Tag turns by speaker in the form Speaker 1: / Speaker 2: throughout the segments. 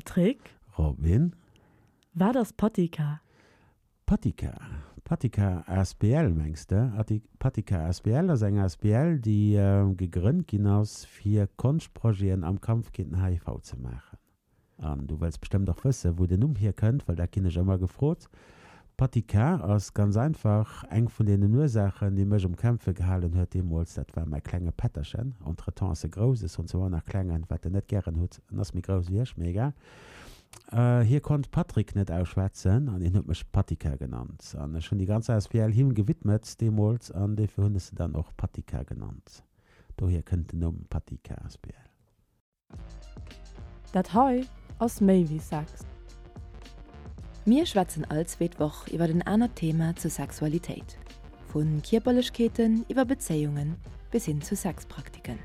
Speaker 1: Patrick?
Speaker 2: Robin?
Speaker 1: Wat ass Patika?
Speaker 2: Patika? Patika asbl mengs de? Patika asbl ass eng asbl déi gegrënnt ginn ass fir Konschtprojeten am Kampf géint den HIV ze maachen. An du wëlls bestëmmt och wëssen, wou den Numm hierkënnt, well dat ginn ech ëmmer gefrot. Patika ass ganz einfach eng vun deenen Ursaachen, déi mech um Kämpfe gehalen huet deemools. Dat war mäi klenge Pätterchen. Entretemps ass e grouss, ech soen zwar ëmmer nach klengen, wat en net gären hutt. En ass méi grouss wéi ech, mee egal. Hie konnt Patrick net ausschwätzen an hien huet mech Patika genannt. An ech hunn déi ganz asbl him gewidmet deemools an dofir hunn ech se dann och Patika genannt. Dohier kënnt den Numm Patika asbl.
Speaker 1: Dat hei ass méi wéi Sex.
Speaker 3: Mir schwätzen all zweet Woch iwwer en anert Thema zur Sexualitéit, vu Kierperlechkeeten iwwer Bezéiungen bis hin zu Sexpraktiken.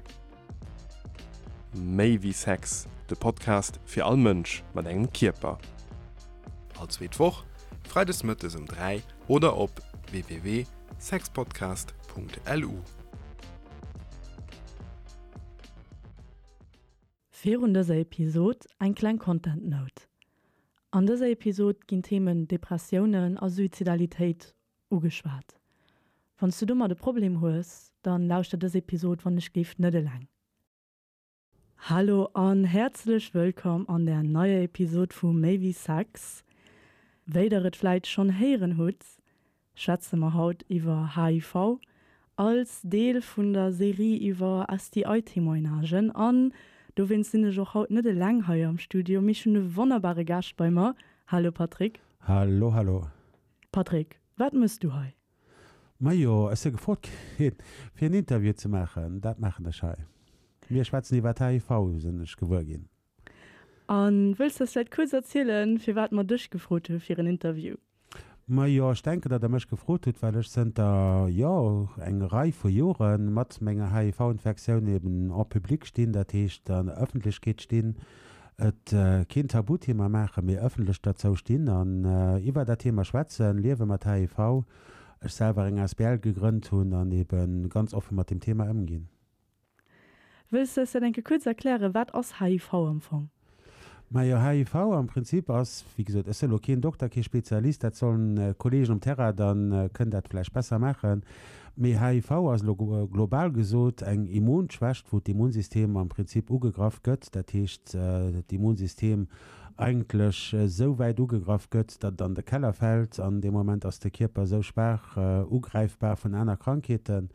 Speaker 4: Méi wéi Sex, de Podcast fir all Mënsch mat engem Kierper.
Speaker 5: All zweet Woch, freides mëttes um 3 oder op www.sexpodcast.lu.
Speaker 1: Virun dëser Episod eng kleng Content Note. An dëser Episod ginn d'Themen Depressiounen a Suizidalitéit ugeschwat. Wann s du domat e Problem hues, dann lauschter dës Episod wann ech géif net eleng. Hallo an häerzlech wëllkomm an der neier Episod vu Méi wéi Sex. Wéi der et vläit schonn héieren hutt, schwätze mer haut iwwer HIV als Deel vun der Serie iwwer STI-Témoignagen. An dowéinst sinn ech och haut net eleng hei am Studio, mee ech hunn e wonnerbare Gaascht bei mer. Hallo Patrick.
Speaker 2: Hallo, hallo.
Speaker 1: Patrick, wat mëss du hei?
Speaker 2: Majo, ech si gefrot ginn, fir en Interview ze maachen. Dat maachen ech hei. Mir schwätzen iwwer HIV, sinn ech gewuer ginn.
Speaker 1: A wëlls de eis vläit kuerz erzielen, firwat mer dech gefrot hu fir en Interview?
Speaker 2: Majo, ech denken, datt Der mech gefrot hutt, well ech zënter, jo, eng Rei vu Jore mat menger HIV-Infektioun eben en public stinn, dat heescht an der Ëffentlechkeet stinn, et keen Tabuthema maachen, mee ëffentlech derzou stinn an iwwer dat Thema schwätzen, Liewe mat HIV, ech selwer eng asbl gegrënnt hunn an ebe ganz offe mat deem Thema ëmginn.
Speaker 1: Wëlls de eis dat eng Kéier kuerz erklären, wat ass HIV am Fong?
Speaker 2: Majo, HIV am Prinzip ass, wéi gesot, ech sinn elo keen Dokter, kee Spezialist, dat sollen d'Kollegen um Terrain dann kënnen dat vläicht besser maachen, mee HIV ass elo global gesot eng Immunschwächt, wou d'Immunsystem am Prinzip ugegraff gëtt, dat heescht d'Immunsystem eigentlech esou wäit ugegraff gëtt, datt et an de Keller fält an dee Moment ass de Kierper esou schwaach ugräifbar vun aner Krankheeten.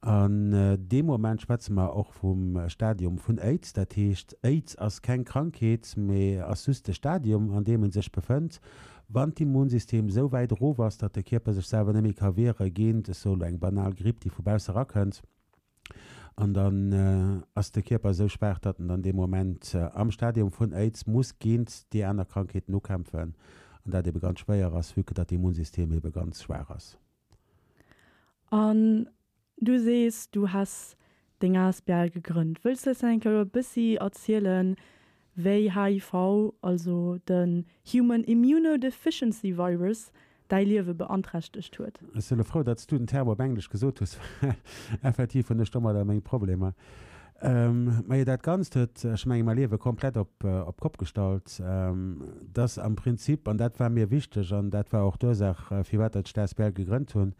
Speaker 2: An deem Moment schwätze mer och vum Stadium vun Aids. Dat heescht, Aids ass keng Krankheet, mee ass just de Stadium, an deem e sech befënnt, wann d'Immunsystem esou wäit erof ass, datt de Kierper sech selwer net méi ka wiere géint, ech soe lo eng banal Gripp, déi vu bausse erakënnt. An dann ass de Kierper esou schwaach, datt en dann dee Moment am Stadium vun Aids muss géint déi aner Krankheeten ukämpfen an dat ebe ganz schwéier ass, vue que datt d'Immunsystem ebe ganz schwaach ass.
Speaker 1: An du sees, du häss deng asbl gegrënnt. Wëlls du eis dann eng Kéier e bëssi erzielen, wéi HIV, also den Human Immunodeficiency Virus, däi Liewe beanträchtegt huet?
Speaker 2: Ech si lo frou, datt s du den Term op Englesch gesot hues, well effektiv hunn ech domadder meng Problemer. Majo, dat Ganzt huet, ech menge mäi Liewe komplett op d'Kopp gestallt. Dass am Prinzip, an dat war mir wichteg an dat war och d'Ursaach, firwat datt ech d'asbl gegrënnt hunn,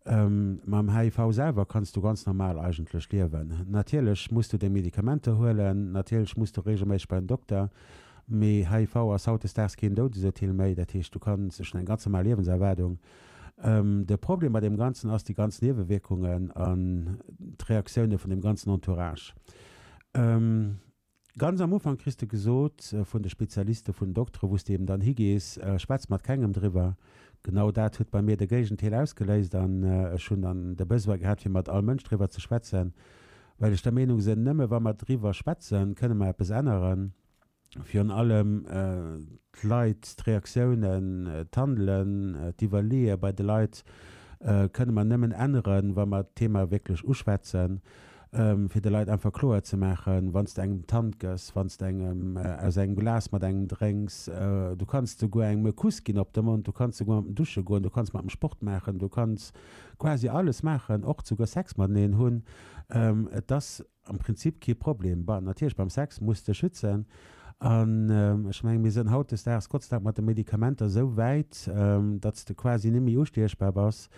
Speaker 2: mam HIV selwer kanns du ganz normal eigentlech liewen. Natierlech muss du deng Medikamenter huelen, natierlech muss du regelméisseg bei den Dokter, mee HIV ass hautdesdaags keen Doudesurteel méi. Dat heescht, du kanns, ech hunn eng ganz normal Liewenserwaardung. De Problem bei deem Ganzen ass déi ganz Niewewierkungen an d'Reaktioune vun dem ganzen Entourage. Ganz am Ufank kriss de gesot vun de Spezialiste, vun den Doktere wou s de eben dann higees, schwätz mat kengem driwwer. Genau dat huet bei mir de Géigenteil ausgeléist an ech hunn dann de Besoin gehat fir mat all Mënsch driwwer ze schwätzen, well ech der Meenung sinn, nëmme wa mer driwwer schwätzen, kënne mer eppes änneren. Virun allem d'Leit, d'Reaktiounen, d'Handelen, d'Iwwerleeë bei de Leit kënne mer nëmmen änneren, wa mer d'Thema wierklech uschwätzen, fir de Leit einfach kloer ze maachen, wann s de engem d'Hand gëss, wann s de engem aus engem Glas mat engem drénks, du kanns souguer engem e Kuss ginn op de Mond, du kanns souguer mat em dusche goen, du kanns mat em Sport maachen, du kanns quasi alles maachen, och souguer Sex mateneen hunn. Et ass Am Prinzip kee Problem. Bon, natierlech beim Sex muss de schützen. An ech mengen, mir sënn hautdesdaags Gott sei Dank mat de Medikamenter esou wäit, datt s de quasi net méi ustiechbar bass.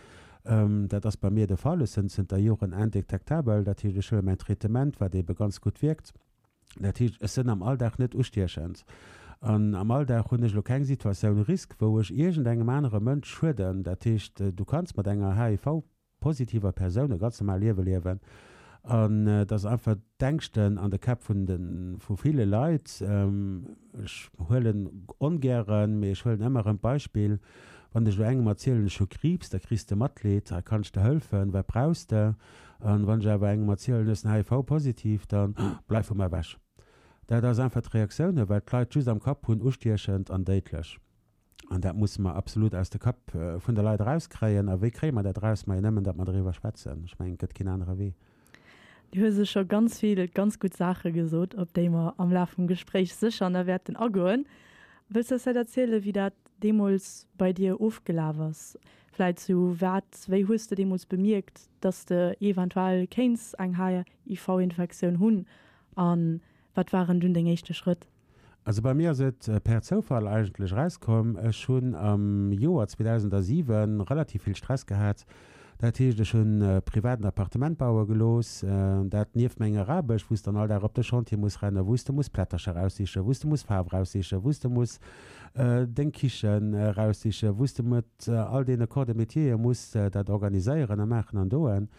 Speaker 2: Dat ass bei mir de Fall. Ech sënn zënter Joren indetektabel. Dat heescht, ech huele mäin Traitement, wat eebe ganz gutt wierkt. Dat heescht, ech sënn am Alldag net ustiechend. An am Alldag hunn ech elo keng Situatioun risque, wou ech iergendengem anere Mënsch schueden. Dat heescht, du kanns mat enger HIV-positiver Persoun e ganz normal Liewe liewen. An et ass einfach d'Ängschten an de Käpp vun de vu ville Leit. Ech huelen ongären, mee ech huelen ëmmer erëm d'Beispill, Wann ech elo engem erzielen, ech hu Kriibs, da kriss de Matleed, hei kann ech der hëlfen, wat brauchs de? An wann ech awer engem erzielen, ech sinn HIV-positiv, dann, Bleif vu mer ewech. Dat ass einfach d'Reaktioun, well d'Leit just am Kapp hunn, ustiechend an déidlech. An dat musse mer absolut aus de Kapp vun de Leit erauskréien. A wéi kréie mer dat eraus? Majo nëmmen, datt mer driwwer schwätzen. Ech mengen, et gëtt keen anere Wee.
Speaker 1: Du hues elo scho ganz vill ganz gutt Saache gesot, op déi mer am Laf vum Gespréich sécher nach wäerten agoen. Wëlls de eis vläicht erzielen, wéi dat deemools bei dir ofgelaf ass? Vläicht sou wat, wéi hues de deemools bemierkt, dass de eventuell kéints eng HIV-Infektioun hunn a wat waren dunn deng éischte Schrëtt?
Speaker 2: Also bei mir ass et per Zoufall eigentlech erauskomm. Ech hunn am Joer 2007 relativ vill Stress gehat. Dat heescht, ech hunn privat en Appartement baue gelooss, dat nieft menger Aarbecht, wou s de dann all Dag op de Chantier muss rennen, wou s de muss Plättercher raussichen, wou s de muss Faarf raussichen, wou s de muss deng Kichen raussichen, wou s de mat all deene Corps de métiere muss dat organiséieren a maachen an doen.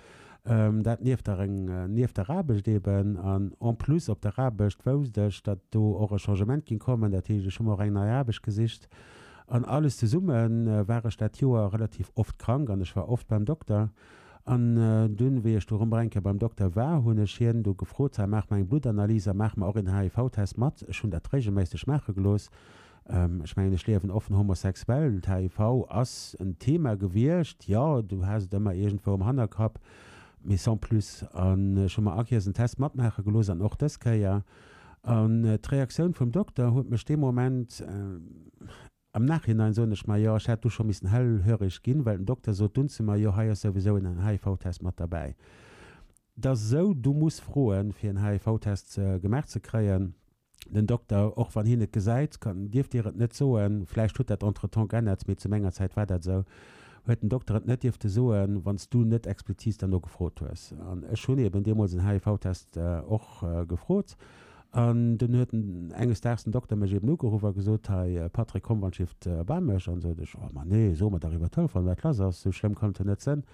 Speaker 2: Dat nieft der nieft der Aarbecht eben. An en plus op der Aarbecht wousst ech, datt do och e Changement ging kommen. Dat heescht, ech hu mer och eng nei Aarbecht gesicht. An alles zesumme war ech dat Joer relativ oft krank an ech war oft beim Dokter. An dunn, wéi ech du erëm eng Kéier beim Dokter war, hunn ech hien du gefrot, Hei, maach mer eng Bluttanalyse a maach mer och een HIV-Test mat. Ech hunn dat regelméisseg maache gelooss. Ech mengen, ech liewen offen homosexuell. D'HIV ass en Thema gewiescht, jo, du has et ëmmer iergendwou am Hannerkapp, mee sans plus. An ech hu mer all Kéiers en Test matmaache gelooss an och dës Kéier. An d'Reaktioun vum Dokter huet mech dee Moment, am Nachhinein soen ech mer, jo, ech hätt du scho missen hellhörig ginn, well den Dokter sot dunn zu mer, jo, hei ass souwisou en HIV-Test mat derbäi. Et ass esou, du muss froen, fir en HIV-Test gemaach ze kréien. Den Dokter, och wann hien et gesäit, kann, dierf dir et net soen, vläicht huet dat entretemps geännert, mee zu menger Zäit war dat esou, huet den Dokter et net dierfte soen, wann s du net explizit derno gefrot hues. An ech hunn eben deemools en HIV-Test och gefrot. An dunn huet enges Daags den Dokter mech eben ugeruff a gesot, Hei Patrick, komm wann d'Schiff bei mech. An sot ech, Oh ma nee, so mer dach iwwer Telefon, wat lass ass, esou schlëmm kann et jo net sënn.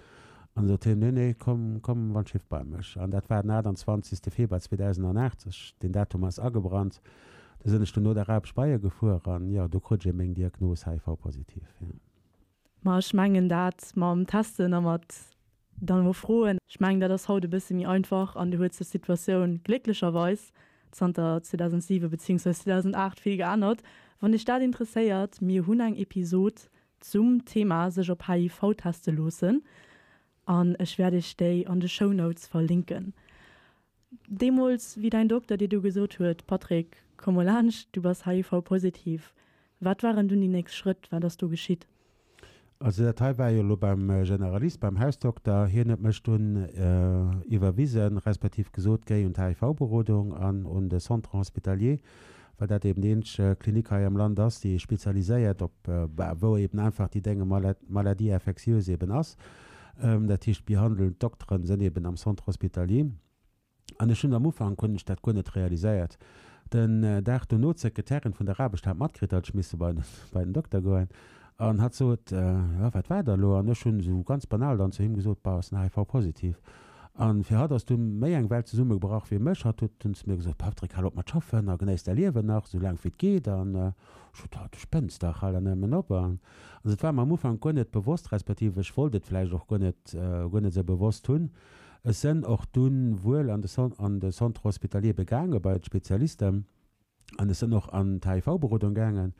Speaker 2: An sot hien, Nee, nee, komm, komm wann d'Schiff bei mech. An dat war den 28. Februar 2008, ech, deen Datum ass agebrannt. Du sinn ech dunn no der Aarbecht bei e gefuer an, jo, do krut ech eben meng Diagnos, HIV-positiv, jo.
Speaker 1: Ma ech mengen dat mam Testen a mat dann elo froen, ech mengen dat ass haut e bësse méi einfach an do huet sech d'Situatioun glécklecherweis zanter 2007 beziehungsweise 2008 vill geännert. Wann Iech dat interesséiert, mir hunn eng Episod zum Thema sech op HIV teste loossen an ech wäert iech déi an de Shownotes verlinken. Deemools wéi däin Dokter dir du gesot huet, Patrick, komm mol laanscht, du bass HIV-positiv, wat waren dunn déi nächst Schrëtt, wat ass do geschitt?
Speaker 2: Also dat hei war jo elo beim Generalist, beim Hausdokter. Hien huet mech dunn iwwerwisen, respektiv gesot, géi un d'HIV-Berodung an un de Centre hospitalier, well dat eben déi eenzeg Klinik hei am Land ass, déi spezialiséiert op, bah, wou eben einfach déi Dénge Maladie infectieuse eben ass. Dat heescht, d'behandelnd Dokteren sënn eben am Centre hospitalier. An ech hunn am Ufank hunn ech dat guer net realiséiert. Den Dag dono, d'Sekretärin vun der Aarbecht hat matkritt, datt ech misse bei bei den Dokter goen. An hatt sot, Jo, wat war da elo? An ech hunn esou ganz banal dann zu him gesot, Bah, ech sinn HIV-positiv. An fir hatt ass du méi eng Welt zesummegebrach wéi mech. Hatt huet dunn zu mir gesot, Patrick, hal op mat schaffen a genéiss däi Liewen nach, esou laang wéi et geet. An ech sot, Du spënns dach, hal der nëmmen op. An also et war mer am Ufank guer net bewosst, respektiv ech wollt et vläicht och guer net, guer net esou bewosst hunn. Ech sënn och dunn wuel an de an de Centre hospitalier begaange bei d'Spezialisten. An ech sinn och an d'HIV-Berodung gaangen,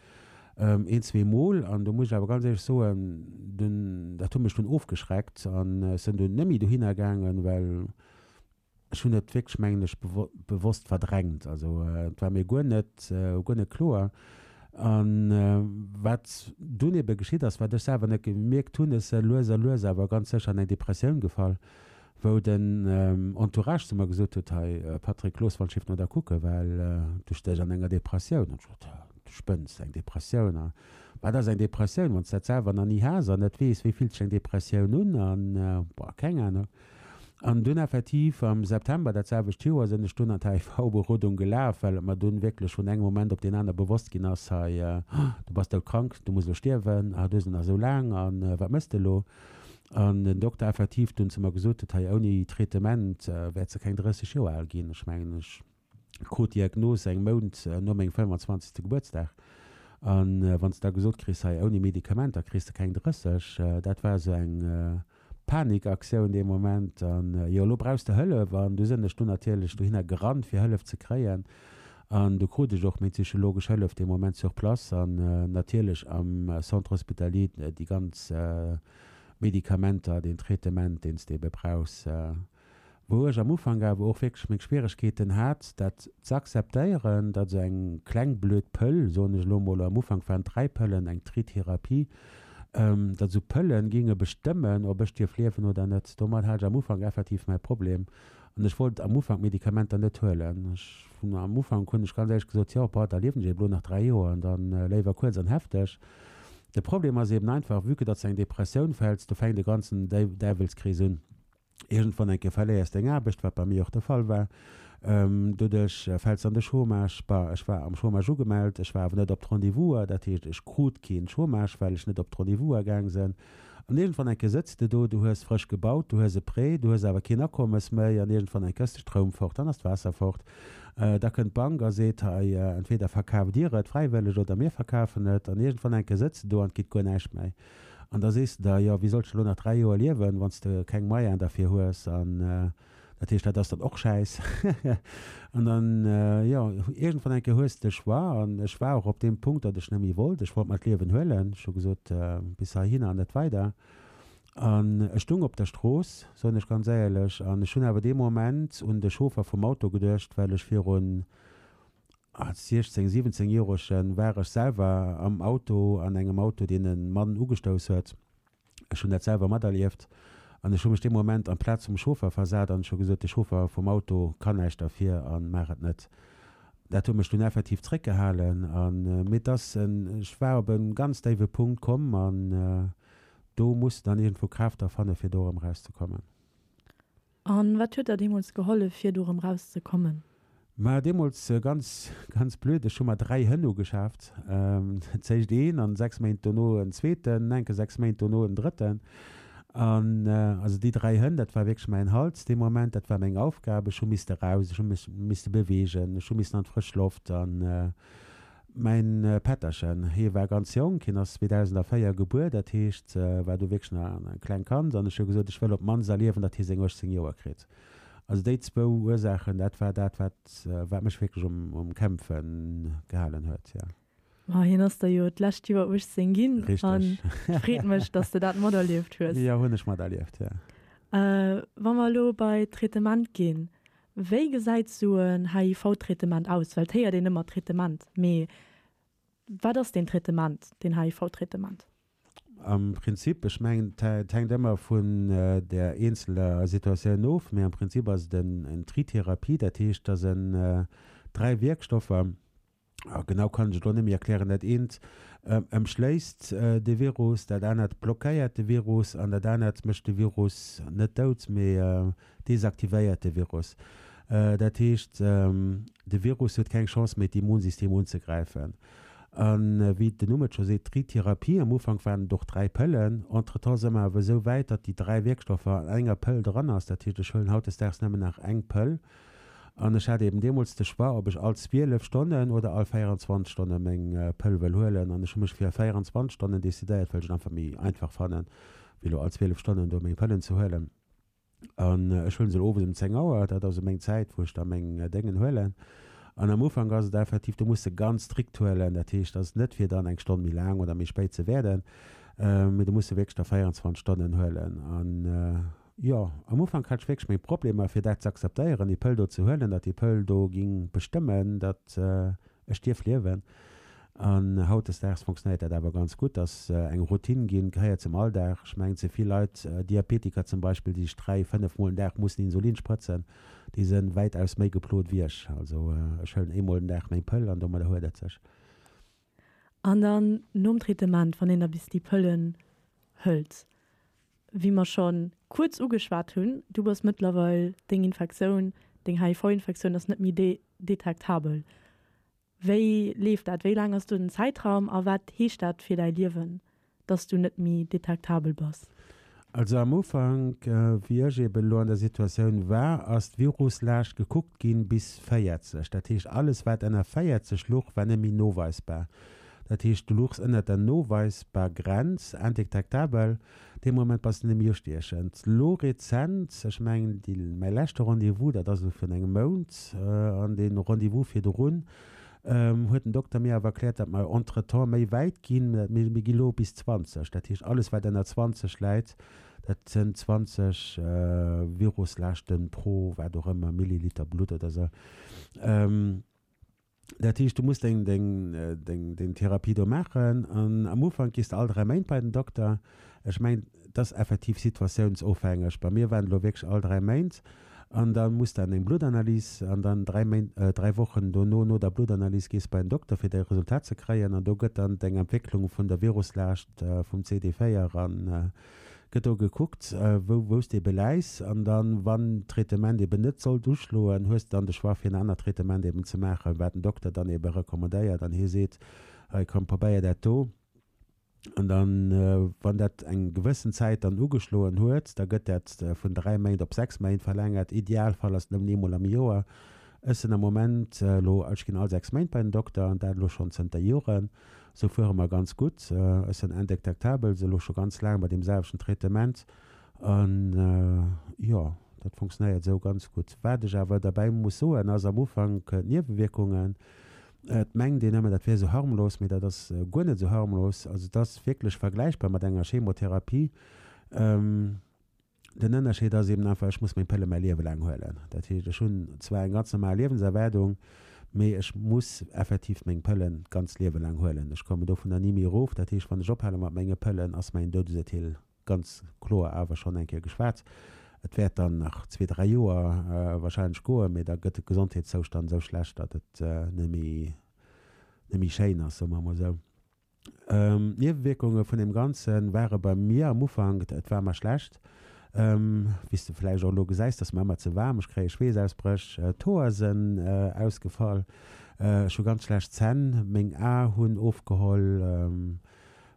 Speaker 2: een, zweemol. An do muss ech awer ganz éierlech soen, dunn, dat huet mech dunn ofgeschreckt an ech sinn dunn net méi dohinner gaangen, well ech hunn et wierklech, mengen ech, bewosst verdrängt. Also et war mir guer net, guer net kloer. A wat dunn ebe geschitt ass, wat ech selwer net gemierkt hunn, ech si lues a lues awer ganz sécher an eng Depressioun gefall. Wou den Entourage zu mer gesot huet, Hei Patrick, looss wann d'Schiff no der kucken, well du stéchs an enger Depressioun. An ech gesot, Du spënns, eng Depressioun? A wat ass eng Depressioun, wann s de dat selwer nach ni has an net weess, wéi fillt sech eng Depressioun un? An, boah, keng Anung. An dunn effektiv am September dat selwecht Joer sinn ech dunn an d'HIV-Berodung gelaf, well et mer dunn wierklech vun engem Moment op deen aner bewosst ginn ass, Hei, du bass doudkrank, du muss elo stierwen, ah, du hues nach esou laang a wat méchs de elo? An den Dokter effektiv dunn zu mer gesot huet, hei ouni Traitement wäerts de keng 30 Joer al ginn. Ech mengen, ech krut d'Diagnos eng Mount no mengem 25. Gebuertsdag. An wann s de da gesot kriss, hei ouni Medikamenter kriss de keng 30, dat war esou eng Panikaktioun dee Moment. An jo, elo brauchs de Hëllef. An du sinn ech dunn natierlech dohinner gerannt fir Hëllef ze kréien. An du krut ech och meng psychologesch Hëllef dee Moment sur place an natierlech am Centre hospitalier déi ganz Medikamenter, deen Traitement, deen s de ebe brauchs. Wou ech am Ufank awer och wierklech meng Schwieregkeeten hat, dat z'akzeptéieren, datt esou eng kleng blöd Pëll, soen ech elo mol, am Ufank waren et 3 Pëllen, eng Tritherapie, datt esou Pëllen géinge bestëmmen, ob ech dierf liewen oder net. Domat hat ech am Ufank effektiv mäi Problem. An ech wollt am Ufank d'Medikamenter net huelen. Ech hunn am Ufank hunn ech ganz éierlech gesot, jo, boah, da liewen ech eben elo nach 3 Joer an dann léiwer kuerz an hefteg. De Problem ass eben einfach, vue que datt s de eng Depressioun fäls, do fänkt e ganzen Däiwelskrees un. Iergendwann eng Kéier verléiers deng Aarbecht, wat bei mir och de Fall war. Doduerch fäls de an de Chômage. Bah, ech war am Chômage ugemellt, ech war awer net op d'Rendez-vouser, dat heescht, ech krut keen Chômage, well ech net op d'Rendez-vouser gaang sinn. An iergendwann eng Kéier sëtz de do, du hues frësch gebaut, du hues e Prêt, du hues awer keen Akommes méi an iergendwann eng Kéier ass de Stroum fort, dann ass d'Waasser fort. Da kënnt d'Bank a seet, hei, entweder verkaaft Dir et fräiwëlleg oder mir verkafen et. An iergendwann eng Kéier sëtz de do an et geet guer näischt méi. An da sees de der, jo, wéi solls de elo nach 3 Joer liewen, wann s de keng Moyenen derfir hues? An dat heescht, dat ass dann och Schäiss. An dann, jo, iergendwann eng Kéier hues de de Choix. An ech war och op deem Punkt, datt ech net méi wollt. Ech wollt mer d'Liewen huelen. Ech hu gesot, bis heihinner an net weider. An ech stung op der Strooss, soen ech ganz éierlech, an ech hunn awer dee Moment un de Chauffer vum Auto geduecht, well ech virun, als 16, 17 Joerege war ech selwer am Auto, an engem Auto, deen e Mann ugestouss huet. Ech hunn dat selwer materlieft an ech hu mech dee Moment an d'Plaz vum Chauffer versat an ech hu gesot, de Chauffer vum Auto kann näischt derfir a maach et net. Dat huet mech dunn effektiv zréckgehalen an, mee et ass en, ech war op e ganz déiwe Punkt komm an do muss de dann iergendwou Kraaft da fanne fir do erëm erauszekommen.
Speaker 1: An wat huet der deemools gehollef fir do rëm raus ze kommen?
Speaker 2: Ma deemools ganz ganz blöd, ech hu mer 3 Hënn ugeschaaft. Zéischt een an 6 Méint dono en zweeten, enke 6 Méint dono en drëtten. An also déi 3 Hënn, dat war wierklech mäin Halt dee Moment, dat war meng Aufgab. Ech hu misste raus, ech hu mech misste beweegen, ech hu missen an d'frësch Loft an Mäin Pätterchen, hie war ganz jonk, hien ass 2004 gebuer, dat heescht, war du wierklech nach e klengt Kand, an ech hu gesot, ech wëll op d'mannst erliewen, datt hie seng 18 Joer kritt. Also déi zwou Ursaachen, dat war dat, wat, wat mech wierklech um, um Kämpfe gehalen huet, jo.
Speaker 1: Ma hien ass der jo d'lescht Joer 18 ginn.
Speaker 2: Richteg.
Speaker 1: An et freet mech, datt s de dat materlieft hues.
Speaker 2: Jo, hunn ech materlieft, jo.
Speaker 1: Wa mer elo bei d'Traitement ginn, Wéi gesäit sou en HIV-Traitement aus? Well et héiert een ëmmer Traitement, mee wat ass deen Traitement, deen HIV-Traitement?
Speaker 2: Am Prinzip, ech mengen, et hänkt ëmmer vun der eenzeler Situatioun of, mee am Prinzip ass et en Tritherapie, dat heescht, dass en 3 Wierkstoffer, Genau kann ech et elo net méi erklären. Dat eent ëmschléisst de Virus, dat anert blockéiert de Virus an dat anert mécht de Virus net dout, mee desaktivéiert de Virus. Dat heescht, de Virus huet keng Chance méi d'Immunsystem unzegräifen. A wéi den Numm et scho seet, Tritherapie, am Ufank waren et och 3 Pëllen, entretemps si mer awer esou wäit, datt déi 3 Wierkstoffer an enger Pëll dran ass. Dat heescht, ech huelen hautdesdaags nëmmen nach eng Pëll. An ech hat eben deemools de Choix, ob ech all 12 Stonnen oder all 24 Stonne meng Pëll wëll huelen. An ech hu mech fir 24 Stonnen decidéiert, well ech et einfach méi einfach fannen, wéi elo all 12 Stonnen do meng Pëllen ze huelen. An ech huelen se elo owes ëm 10 Auer, dat ass esou meng Zäit, wou ech da meng Déngen huelen. An am Ufank ass et effektiv, do muss de ganz strikt huelen, dat heescht, ass net fir dann eng Stonn méi laang oder méi spéit ze wäerden, mee du muss se wierklech da 24 Stonnen huelen. An Jo, am Ufank hat ech wierklech meng Problemer fir dat ze akzeptéieren, déi Pëll do ze huelen, datt déi Pëll do ging bestëmmen, datt ech dierf liewen. An hautdesdaags fonctionnéiert dat awer ganz gutt, ass eng Routine ginn, gehéiert zum Alldag. Ech mengen, ze vill Leit, Diabetiker zum Beispill, déi sech 3, 5 Mol den Dag mussen Insulin sprëtzen, déi se wäitaus méi geplot wéi ech. Also ech huelen eemol den Dag meng Pëll an domadder huet et sech.
Speaker 1: An dann nom Traitement, wann een da bis déi Pëllen hëlt, wéi mer scho kuerz ugeschwat hunn, du bass mëttlerweil, deng Infektioun, deng HIV-Infektioun ass net méi detektabel. Wéi leeft dat? Wéi laang ass do den Zäitraum a wat heescht dat fir däi Liewen, dass du net méi detektabel bass?
Speaker 2: Also am Ufank, wéi ech eben elo an der Situatioun war, ass d'Viruslaascht gekuckt ginn bis 40. Dat heescht, alles wat ënner 40 luch, war net méi noweisbar. Dat heescht, du luchs ënnert der noweisbar Grenz, indetektabel, dee Moment bass de net méi ustiechend. Lo rezent, ech mengen déi, mäi leschte Rendez-vous, dat ass elo virun engem Mount, an dee Rendez-vous virdrun, huet den Dokter mir awer erkläert, datt mer entretemps méi wäit ginn, mir gi lo bis 20. Dat heescht, alles wat ënner 20 läit, dat sënn 20 Viruslaaschten pro wat och ëmmer Milliliter Blutt oder sou. Dat heescht, du muss deng, deng, deng, deng Therapie do maachen an am Ufank gees de all 3 Méint bei den Dokter. Ech mengen, et ass effektiv situatiounsofhängeg. Bei mir waren et elo wierklech all 3 Méint an da muss de an eng Bluttanalys an dann 3 Méint, 3 Wochen dono, no der Bluttanalys gees bei den Dokter fir däi Resultat ze kréien an do gëtt dann deng Entwécklung vun der Viruslaascht vum CD4 an Gëtt do gekuckt, wou wou s de ebe läis, an dann, wann d'Traitement eben net sollt uschloen, hues de dann de Choix fir en anert Traitement eben ze maachen, wat den Dokter dann ebe recommandéiert an hie seet, hei komm probéier dat do. An dann, wann dat eng gewëssen Zäit dann ugeschloen huet, da gëtt dat vun 3 Méint op 6 Méint verlängert. Idealfall ass nëmmen eemol am Joer. Ech sinn am Moment elo, ech ginn all 6 Méint bei den Dokter an dat elo schonn zënter Joren. Sou fuere mer ganz gutt. Ech sinn indétectabel, se elo scho ganz laang bei deem selwechten Traitement. An jo, dat funktionéiert esou ganz gutt. Wat ech awer derbäi muss soen, ass am Ufank d'Niewewierkungen. Et mengt een ëmmer, dat wär esou harmlos, mee dat ass guer net esou harmlos. Also et ass wierklech vergläichbar mat enger Chemotherapie. Den Ënnerscheed ass eben einfach, ech muss meng Pëlle mäi Liewe laang huelen. Dat heescht, ech hunn zwar eng ganz normal Liewenserwaardung, mee ech muss effektiv meng Pëllen d'ganzt Liewe laang huelen. Ech kommen dovunner ni méi erof. Dat heescht, wann ech ophale mat menge Pëllen, ass mäin Doudesurteel ganz kloer awer schonn eng Kéier geschwat. Et wäert dann nach zwee, dräi Joer wahrscheinlech goen, mee da gëtt de Gesondheetszoustand esou schlecht, datt et net méi, net méi schéin ass, soe mer emol esou. D'Niewewierkunge vun deem Ganze ware bei mir am Ufank, et war mer schlecht, wéi s de vläicht och elo gesäis, et ass mer ëmmer ze waarm, ech kréie Schweessausbréch, d'Hoer sënn ausgefall, ech hu ganz schlecht Zänn, meng Ae hunn ofgeholl,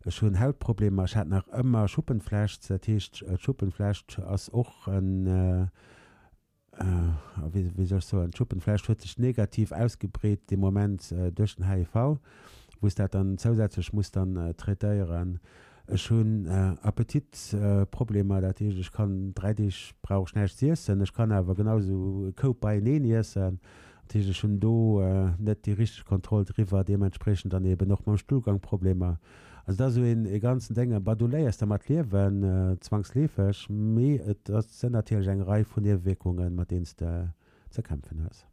Speaker 2: ech hunn Hautproblemer, ech hat nach ëmmer Schuppenflecht, dat heescht d'Schuppenflecht ass och en, wéi soll ech soen, d'Schuppenflecht huet sech negativ ausgebreet dee Moment duerch den HIV, wou s dat dann zousätzlech muss dann traitéieren. Ech hunn Appetitproblemer, dat heescht ech kann 3 Deeg brauch ech näischt z'iessen, ech kann awer genau esou e Koup beieneen iessen. Dat heescht ech hunn do net déi richteg Kontroll driwwer, deementspriechend dann eben och mam Stullgang Problemer. Also dat ass esou een e ganzen Déng, bah du léiers dermat liewen, zwangsleefeg, mee et sënn natierlech eng Rei vun Niewewierkungen, mat deenen s de ze kämpfen hues.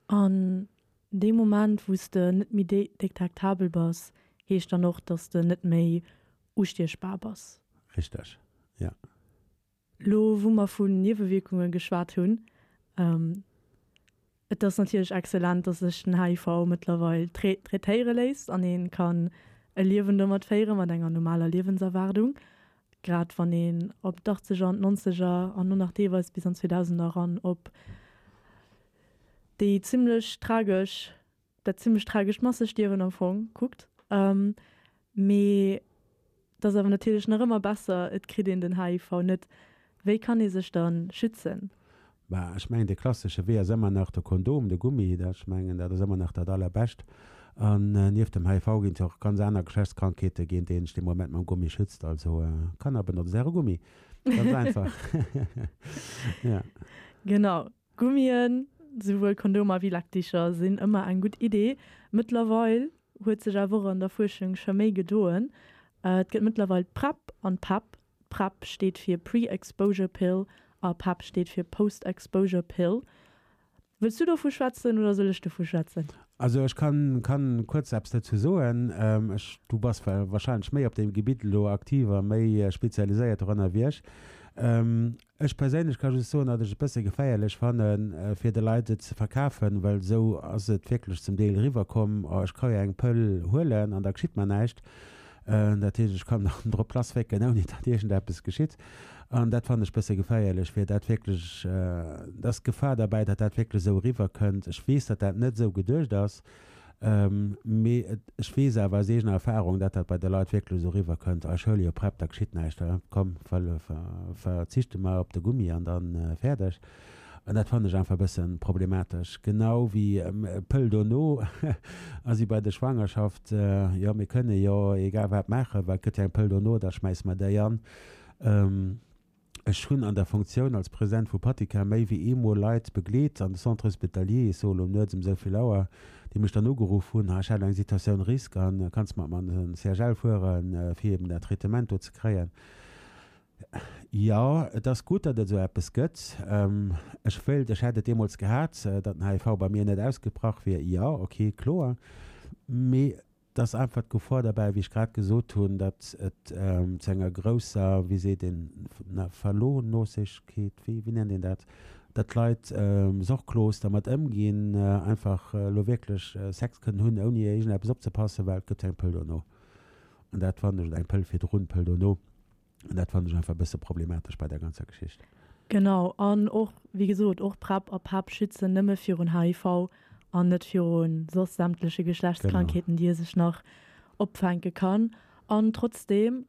Speaker 1: An dee Moment wou s de net méi detektabel bass, heescht dann och, dass de net méi ustiechbar bass?
Speaker 2: Richteg, jo.
Speaker 1: Lo wou mer vun Niewewierkunge geschwat hunn, et ass natierlech excellent, dass sech den HIV mëttlerweil traitéiere léisst an ee kann e Liewen domat féiere mat enger normaler Liewenserwaardung, grad wann een op d'Achtzeger an d'Nonzeger an och nach deelweis bis an d'Zweedausender eran op déi zimmlech tragesch, dat zimmlech tragescht Massestierwen am Fong kuckt. Mee et ass awer natierlech nach ëmmer besser, et kritt een den HIV net. Wéi kann ee sech da schützen?
Speaker 2: Bah, ech mengen, de klassesche Wee ass ëmmer nach de Kondom, de Gummi. Dat, ech mengen, dat ass ëmmer nach dat Allerbescht. An nieft dem HIV ginn et jo och ganz aner Geschlechtskrankheete géint déi een sech dee Moment mam Gummi schützt. Also, Kanner, benotzt äre Gummi. Ganz einfach.
Speaker 1: Ja. Genau. Gummien, souwuel Kondomer wéi Leckdicher, sinn ëmmer eng gutt Idee. Mëttlerweil huet sech awer och an der Fuerschung scho méi gedoen. Et gëtt mëttlerweil d'PrEP an d'PEP. PrEP steet fir Pre-Exposure Pill a PEP steet fir Post-Exposure Pill. Wëlls du dovu schwätzen oder soll ech dovu schwätzen?
Speaker 2: Also ech kann, kann kuerz eppes dozou soen. Ech, du bass wahrscheinlech méi op deem Gebitt elo aktiv a méi spezialiséiert doranner wéi ech. Ech perséinlech ka just soen, datt ech et bësse geféierlech fannen, fir de Leit et ze verkafen, well esou ass et wierklech zum Deel eriwwerkomm, oh ech ka jo eng Pëll huelen an da geschitt mer näischt. Dat heescht, ech kann dann drop lasswécken, ouni datt iergendeppes geschitt. An dat fannen ech bësse geféierlech, fir dat wierklech, et ass d'Gefahr derbäi, datt dat wierklech esou eriwwerkënnt. Ech weess, datt dat net esou geduecht ass, mee ech weess awer aus eegener Erfahrung, datt dat bei de Leit wierklech esou eriwwerkënnt, Ah, ech huele jo PrEP, da geschitt näischt, komm, verzichte mer op de Gummi an da fäerdeg. An dat fannen ech einfach e bësse problematesch. Genau wéi Pëll dono a si bei der Schwangerschaft, jo mir kënne jo egal wat maachen, well et gëtt jo eng Pëll dono, da schmäisse mer déi an. Ech hunn an der Funktioun als President vu Patika méi wéi eemol Leit begleet an de Centre hospitalier, ech soe lo nuets ëm esou vill Auer, déi mech dann ugeruff hunn, ha ech hätt eng Situatioun risque an kanns mat mer an den CHL fueren, fir eben dat Traitement do ze kréien. Jo, et ass gutt, datt et esou eppes gëtt. Ech wéilt, ech hätt et deemools gehat, datt den HIV bei mir net ausgebrach wier. Jo, ok, kloer. Mee et ass einfach d'Gefor derbäi, wéi ech grad gesot hunn, datt et zu enger grousser, wéi seet een, Verlohnosegkeet, wéi, wéi nennt een dat, datt d'Leit sorglos dermat ëmginn, einfach elo wierklech Sex kënnen hunn, ouni iergendeppes opzepassen, well et gëtt jo eng Pëll dono. An dat fannen ech, oder eng Pëll virdrun, Pëll dono. An dat fannen ech einfach e bësse problematesch bei der ganzer Geschicht.
Speaker 1: Genau, an och, wéi gesot, och PrEP a PEP schützen nëmme virun HIV an net viru soss sämtleche Geschlechtskrankheeten, déi ee sech nach opfänke kann. An trotzdeem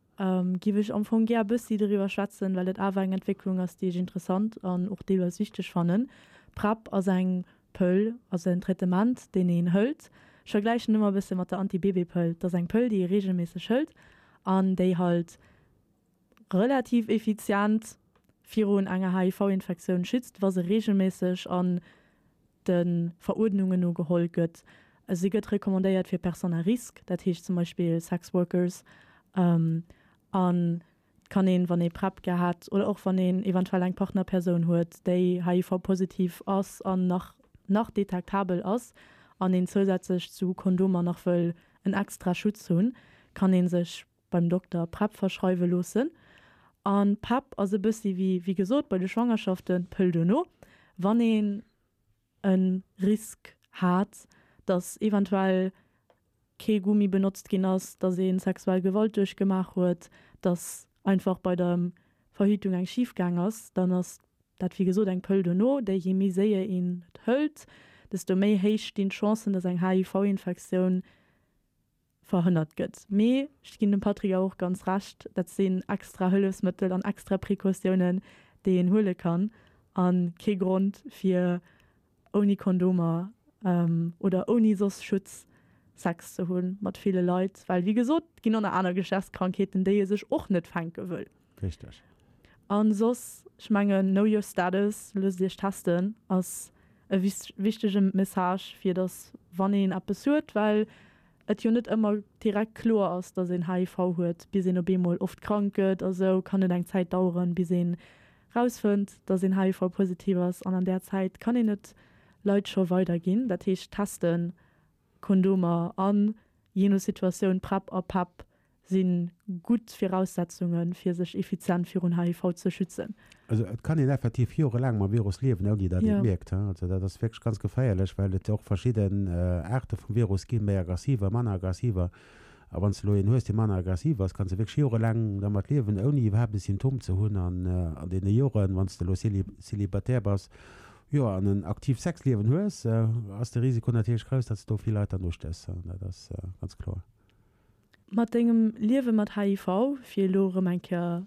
Speaker 1: giff ech am Fong gär e bëssi doriwwer schwätzen, well et awer eng Entwécklung ass, déi ech interessant an och deelweis wichteg fannen. PrEP ass eng Pëll, also en Traitement, deen een hëlt. Ech vergläichen ëmmer e bësse mat der Anti-Bébé-Pëll. Et ass eng Pëll, déi ee reegelméisseg hëlt an déi halt relativ effizient virun enger HIV-Infektioun schützt, wa se reegelméisseg an de Veruerdnungen no geholl gëtt. Si gëtt recommandéiert fir Personnes à risque, dat heescht zum Beispill Sexworkers an Et kann een, wann ee PrEP gehat oder och wann een eventuell eng Partnerpersoun huet, déi HIV-positiv ass an nach nach detektabel ass an een zousätzlech zu Kondomer nach wëll en extra Schutz hunn, kann ee sech beim Dokter PrEP verschreiwe loossen. A PEP ass e bëssi wéi, wéi gesot, bei de Schwangerschaften d'Pëll dono, wann een e Risk hat, datt eventuell kee Gummi benotzt ginn ass, datt ee sexuell Gewalt duerchgemaach huet, datt einfach bei der Verhütung eng schif gaang ass, dann ass dat wéi gesot eng Pëll dono, déi je méi séier een et hëlt, desto méi héich stinn d'Chancen, datt eng HIV-Infektioun verhënnert gëtt. Mee ech ginn dem Patrick awer och ganz Recht, dat sinn extra Hëllefsmëttel an extra Precautiounen, déi een huele kann a kee Grond fir ouni Kondomer oder ouni soss Schutz Sex ze hu mat ville Leit, well wéi gesot, et ginn och nach aner Geschlechtskrankheeten, déi ee sech och net fänke wëll.
Speaker 2: Richteg.
Speaker 1: A soss, ech mengen, know your status, loosst iech testen, ass e wichtege Message, fir datt wann een eppes huet, well et jo net ëmmer direkt kloer ass, datt een HIV huet, bis een op eemol oft krank gëtt a sou, kann et eng Zäit daueren, bis een rausfënnt, datt een HIV-positiv ass an an där Zäit kann een et Leit scho weiderginn. Dat heescht testen, Kondomer an, jee no Situatioun, PrEP a PEP si gutt Viraussetzunge fir sech effizient virun HIV ze schützen.
Speaker 2: Also et kann een effektiv jorelaang mam Virus liewen, ouni datt een et mierkt. Also dat ass wierklech ganz geféierlech, well et och verschidden Aarte vum Virus ginn, méi aggressiver, manner aggressiver. A wann s de elo een hues, dee manner aggressiv ass, kanns de wierklech jorelaang dermat liewen, ouni iwwerhaapt e Symptom ze hunn. An an deene Joren, wann s de elo célibataire bass, jo, an en aktiivt Sexliewen hues, ass de Risiko natierlech grouss, datt s de do vill Leit dann ustéchs. Dat ass ganz kloer.
Speaker 1: Mat dengem Liewe mat HIV, fir elo erëm eng Kéier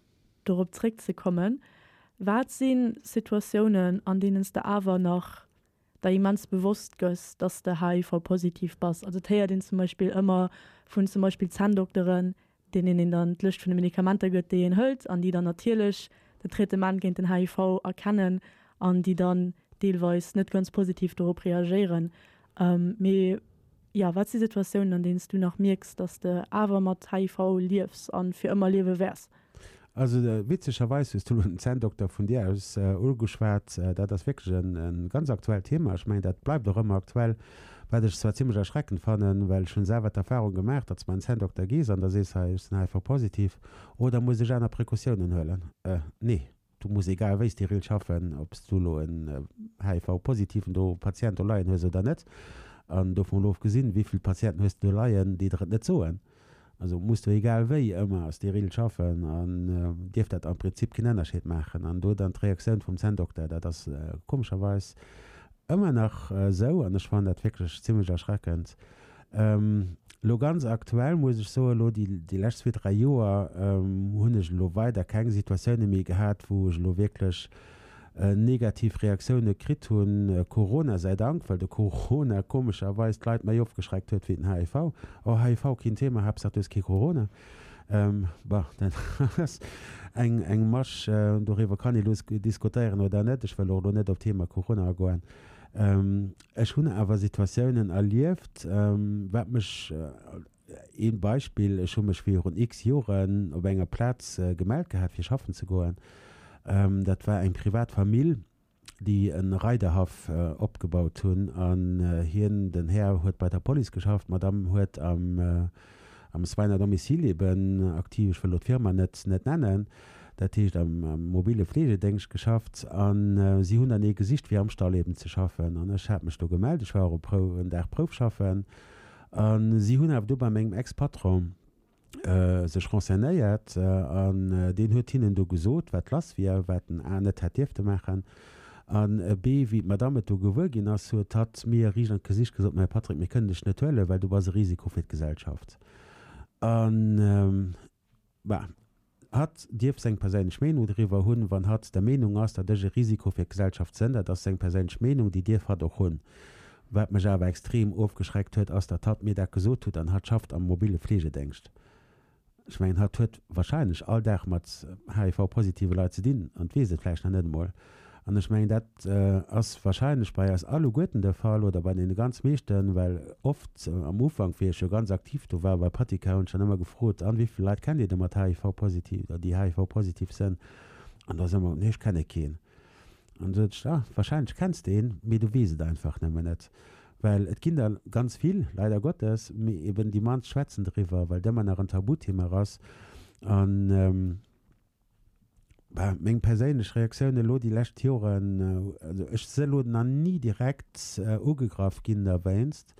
Speaker 1: dorop zréckzekommen, wat si Situatiounen, an deenen s de awer nach der immens bewosst gëss, dass de HIV-positiv bass? Also et héiert een zum Beispill ëmmer vun zum Beispill Zänndokteren, deenen een dann d'Lëscht vun de Medikamenter gëtt, déi een hëlt an déi dann natierlech den Traitement géint den HIV erkennen an déi dann deelweis net ganz positiv dorop reagéieren. Mee jo, wat si Situatiounen, an deenen s du nach mierks, dass de awer mat HIV liefs a fir ëmmer liewe wäers?
Speaker 2: Also witzegerweis hues du elo den Zänndokter vun dir aus ugeschwat. Dat ass wierklech e ganz aktuellt Thema. Ech mengen, dat bleift och ëmmer aktuell. Wat ech zwar zimlech erschreckend fannen, well ech hunn selwer d'Erfahrung gemaach, datt s beim Zänndokter gees an da sees, hei ech sinn HIV-positiv, oh da muss ech aner Precautiounen huelen. Nee, du muss egal wéi steril schaffen, ob s du elo en HIV-positiven do Patient do leien hues oder net. An dovun elo ofgesinn, wéi vill Patienten hues de do leien, déi der et net soen? Also muss du egal wéi ëmmer steril schaffen an dierf dat am Prinzip keen Ënnerscheed maachen. An do dann d'Reaktioun vum Zänndokter, dat ass komescherweis ëmmer nach esou an ech fannen dat wierklech zimmlech erschreckend. Elo ganz aktuell muss ech soen, elo déi déi lescht zwee, dräi Joer hunn ech elo weider keng Situatioune méi gehat, wou ech elo wierklech negativ Reaktioune kritt hunn, Corona sei Dank, well de Corona komescherweis d'Leit méi ofgeschreckt huet wéi den HIV. Oh, HIV keen Thema, Haaptsaach du hues kee Corona. Bon, dat ass eng eng Masch, doriwwer kann ee lo diskutéieren oder net. Ech wëll och elo net op d'Thema Corona agoen. Ech hunn awer Situatiounen erlieft, wat mech, Een Beispill, Ech hu mech virun x Joren op enger Plaz gemellt gehat fir schaffen ze goen. Dat war eng privat Famill, déi e Reiderhaff opgebaut hunn an hien, den Här, huet bei der Police geschafft, d'Madame huet am am Soins à domicile eben aktiv, ech wëll elo d'Firma net net nennen, dat heescht am mobile Fleegedéngscht geschafft an si hunn dann ee gesicht fir am Stall eben ze schaffen an ech hat mech do gemellt, ech war och e Prou en Dag Proufschaffen. A si hunn awer do bei mengem Ex-Patron sech renseignéiert an deen huet hinnen do gesot, wat lass wier, wat en A net hätt dierfte maachen an B, wéi d'Madame et do gewuer ginn ass, huet hatt mir riicht an d'Gesicht gesot, Mä Patrick, mir kënnen dech net huelen, well du bass e Risiko fir d'Gesellschaft. An Bah, hatt dierf seng perséinlech Meenung doriwwer hunn. Wann hatt der Meenung ass, datt ech e Risiko fir d'Gesellschaft sënn, dat ass seng perséinlech Meenung, déi dierf hatt och hunn. Wat mech awer extrem ofgeschreckt huet, ass, datt hatt mir dat gesot hutt an hatt schafft am mobile Fleegedéngscht. Ech mengen, hatt huet wahrscheinlech all Dag mat HIV-positive Leit ze dinn an weess et vläicht nach net emol. An ech mengen, dat ass wahrscheinlech bei eis alleguerten de Fall oder bei deene ganz meeschten, well oft am Ufank, wéi ech jo ganz aktiv do war bei Patika, hunn ech dann ëmmer gefrot, An, wéi vill Leit kennt Dir da mat HIV-positiv oder déi HIV-positiv sënn? An da ass ëmmer, Nee, ech kenne keen. An da sot ech, Ah, wahrscheinlech kenns de een, mee du weess et einfach nëmmen net. Well et ginn der ganz vill, leider Gottes, mee eben déi mannst schwätzen driwwer, well et ëmmer nach en Tabuthema ass. An. Bah, meng perséinlech Reaktioun elo déi lescht Joren, also ech si elo nach ni direkt ugegraff ginn derwéinst.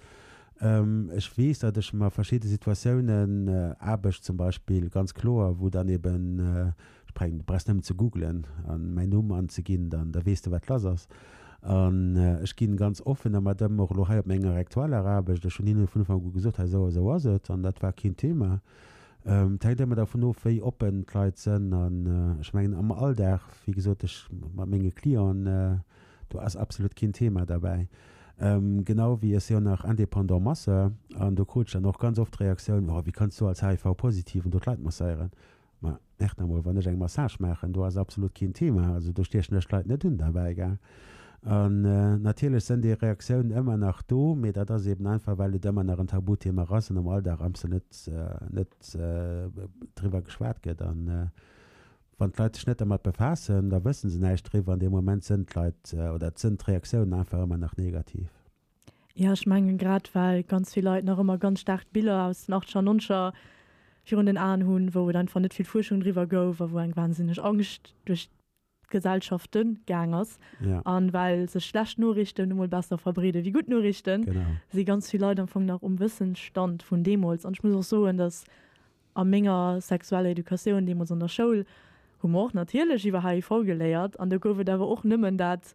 Speaker 2: Ech weess, datt ech mer verschidde Situatiounen, Aarbecht zum Beispill, ganz kloer, wou dann eben, ech brengen, du brauchs nëmmen ze googlen an mäin Numm anzeginn, dann da weess de wat lass ass. An ech ginn ganz offen dermat ëm, och elo hei op menger aktueller Aarbecht. Ech hunn hinne vun Ufank u gesot, hei esou a esou ass et an dat war keen Thema. Et hänkt ëmmer dervun of, wéi oppen d'Leit sënn. An ech mengen am Alldag, wéi gesot, ech mat menge Clienten, do ass absolut keen Thema derbäi. Genau wéi ech si jo nach indépendant Masseur an do krut ech dann och ganz oft d'Reaktioun, Oh, wéi kanns du als HIV-Positiven do d'Leit masséieren? Ma echt emol, wann ech eng Massage maachen, do ass absolut keen Thema, also do stiechen ech d'Leit net un derbäi, gell. An natierlech sënn déi Reaktiounen ëmmer nach do, mee dat ass eben einfach, well et ëmmer nach en Tabuthema ass an am Alldag amste net, net driwwer geschwat gëtt. An wann d'Leit sech net dermat befaassen, da wësse se näischt driwwer an dee Moment sënn d'Leit oder sënn d'Reaktiounen einfach ëmmer nach negativ.
Speaker 1: Jo, ech mengen grad well ganz vill Leit nach ëmmer ganz staark d'Biller aus den Achteger an Nonzeger virun den Aen hunn, wou et einfach net vill Fuerschung driwwer gouf a wou eng wahnsinneg Angscht duerch d'Gesellschafte gaang ass. An well sech schlecht Noriichten nu mol besser verbreede wéi gutt Noriichten, si ganz vill Leit am Fong nach um Wëssensstand vun deemools. An ech muss och soen, datt A menger sexueller Educatioun deemools an der Schoul hu mer och natierlech iwwer HIV geléiert an do gouf et awer och nëmmen dat,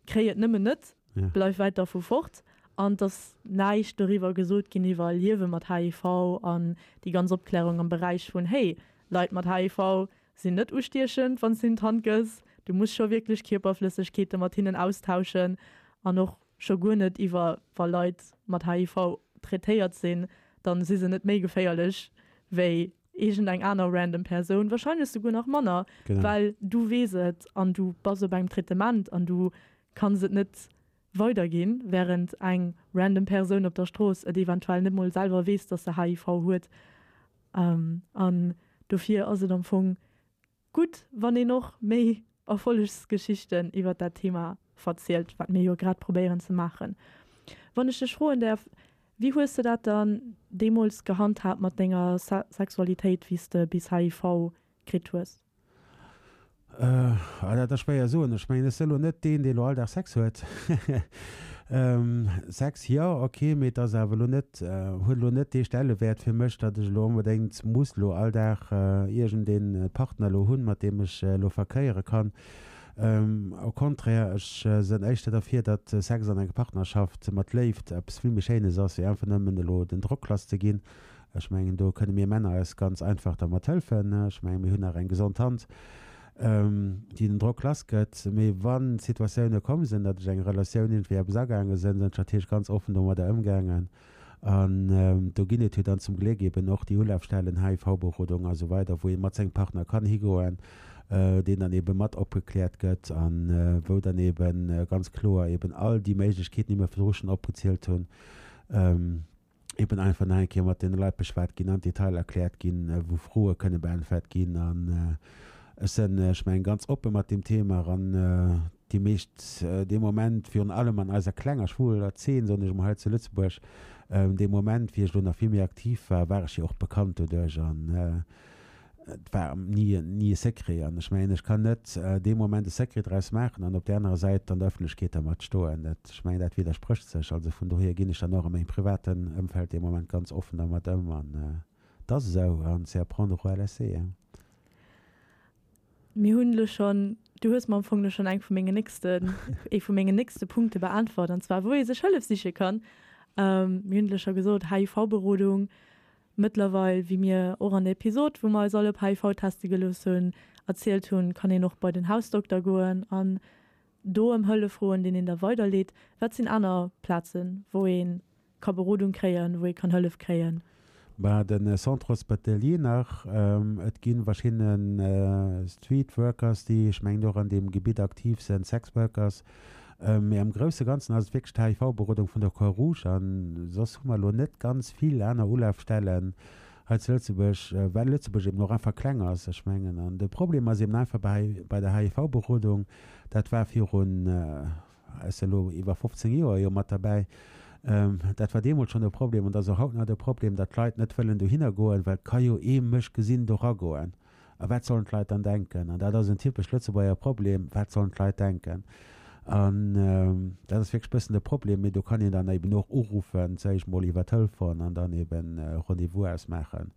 Speaker 1: Kréi et nëmmen net, bleif wäit dervu fort. An et ass näischt doriwwer gesot ginn iwwer Liewe mat HIV an déi ganz Opklärung am Beräich vun, Hey, Leit mat HIV sinn net ustiechend, wann s de hinnen d'Hand gëss, du muss scho wierklech Kierperflëssegkeete mat hinnen austauschen an och Scho guer net iwwer wa Leit mat HIV traitéiert sinn, dann si se net méi geféierlech wéi iergend eng aner random Persoun, wahrscheinlech souguer nach manner, well du weess et an du bass op engem Traitement an du kanns et net weiderginn, während eng random Persoun op der Strooss et eventuell net mol selwer weess, dass se HIV huet. An dofir ass et am Fong Gutt, wann een och méi Erfollegsgeschichten iwwert dat Thema verzielt, wat mir jo grad probéieren ze maachen. Wann ech dech froen däerf, wéi hues de dat dann deemools gehandhaabt mat denger Sexualitéit, wéi s de bis HIV kritt hues?
Speaker 2: Ah, dat ass schwéier soen. Ech mengen, ech sinn elo net deen, dee elo all Dag Sex huet. Sex, jo, ok, mee et ass awer elo net, huet elo net dee Stellewäert fir mech, datt ech elo onbedéngt muss elo all Dag iergendee Partner elo hunn, mat deem ech elo verkéiere kann. Au contraire, ech sënn éischter derfir, datt Sex an enger Partnerschaft mat Léift eppes vill méi Schéines ass, wéi einfach nëmmen elo den Drock lass ze ginn. Ech mengen, do kënne mir Männer eis ganz einfach dermat hëlfen. Ech mengen, mir hunn nach eng gesond Hand, déi den Drock lass gëtt. Mee wann d'Situatioune komm sinn, datt ech eng Relatioun iergendwéi eppes agaange sinn, sinn ech natierlech ganz offen domadder ëmgaangen. An do ginn et jo dann zum Gléck eben och déi Ulafstellen, HIV-Berodung a sou weider, wou ee mat sengem Partner kann higoen, deen dann ebe mat opgekläert gëtt a wou dann ebe ganz kloer eben all déi Méiglechkeeten, déi mir virdru schonn opgezielt hunn, eben einfach nach eng Kéier mat deene Leit beschwat ginn, am Detail erkläert ginn, wou Froe kënne beäntwert ginn. An ech sinn, ech mengen, ganz oppe mat deem Thema an déi meescht dee Moment, virun allem an eiser klenger schwuler Zeen, soen ech emol, hei zu Lëtzebuerg, dee Moment, wéi ech elo nach vill méi aktiv war, war ech jo och bekannt doduerch an Et war ni, ni e Secret. An ech mengen, ech kann net dee Moment e Secret draus maachen an op där anerer Säit an der Ëffentlechkeet dermat stoen. Dat, ech mengen, dat widdersprécht sech. Also vun dohier ginn ech dann och a mengem privaten Ëmfeld dee Moment ganz offen dermat ëm. An et ass esou. An c'est à prendre ou à laisser.
Speaker 1: Mir hunn elo schonn, du hues mer am Fong elo schonn eng vu mengen nächsten, ee vu mengen nächste Punkte beäntwert, an zwar wou ee sech Hëllef siche kann. Mir hunn elo scho gesot, HIV-Berodung, Mëttlerweil, wéi mir och an der Episod, wou mer eis all op HIV teste gelooss hunn, erzielt hunn, kann een och bei den Hausdokter goen an do ëm Hëllef froen, deen een da weiderleet. Wat sinn aner Plazen, wou ee ka Berodung kréien, wou ee kann Hëllef kréien?
Speaker 2: Bah, de Centre Hospitalier nach. Et gi verschidde Street Workers, déi, ech mengen, och an deem Gebitt aktiv sinn, Sex Workers. Mee am grousse Ganzen ass et wierklech d'HIV-Berodung vun der Croix-Rouge. A soss hu mer elo net ganz vill aner Ulafstellen hei zu Lëtzebuerg, well Lëtzebuerg eben och einfach kleng ass. Ech mengen, an de Problem ass eben einfach bei bei der HIV-Berodung, dat war virun, ech si elo iwwer 15 Joer jo mat derbäi, dat war deemools schonn e Problem an dat ass och haut nach de Problem, datt d'Leit net wëllen dohinner goen, well et ka jo ee mech gesinn do ragoen. A wat sollen d'Leit dann denken? An dat ass en typesch Lëtzebuerger Problem, Wat sollen d'Leit denken? An dat ass wierklech e bëssen de Problem. Mee do kann een dann eben och uruffen, zuéischt mol iwwer Telefon an dann eben e Rendez-vous ausmaachen.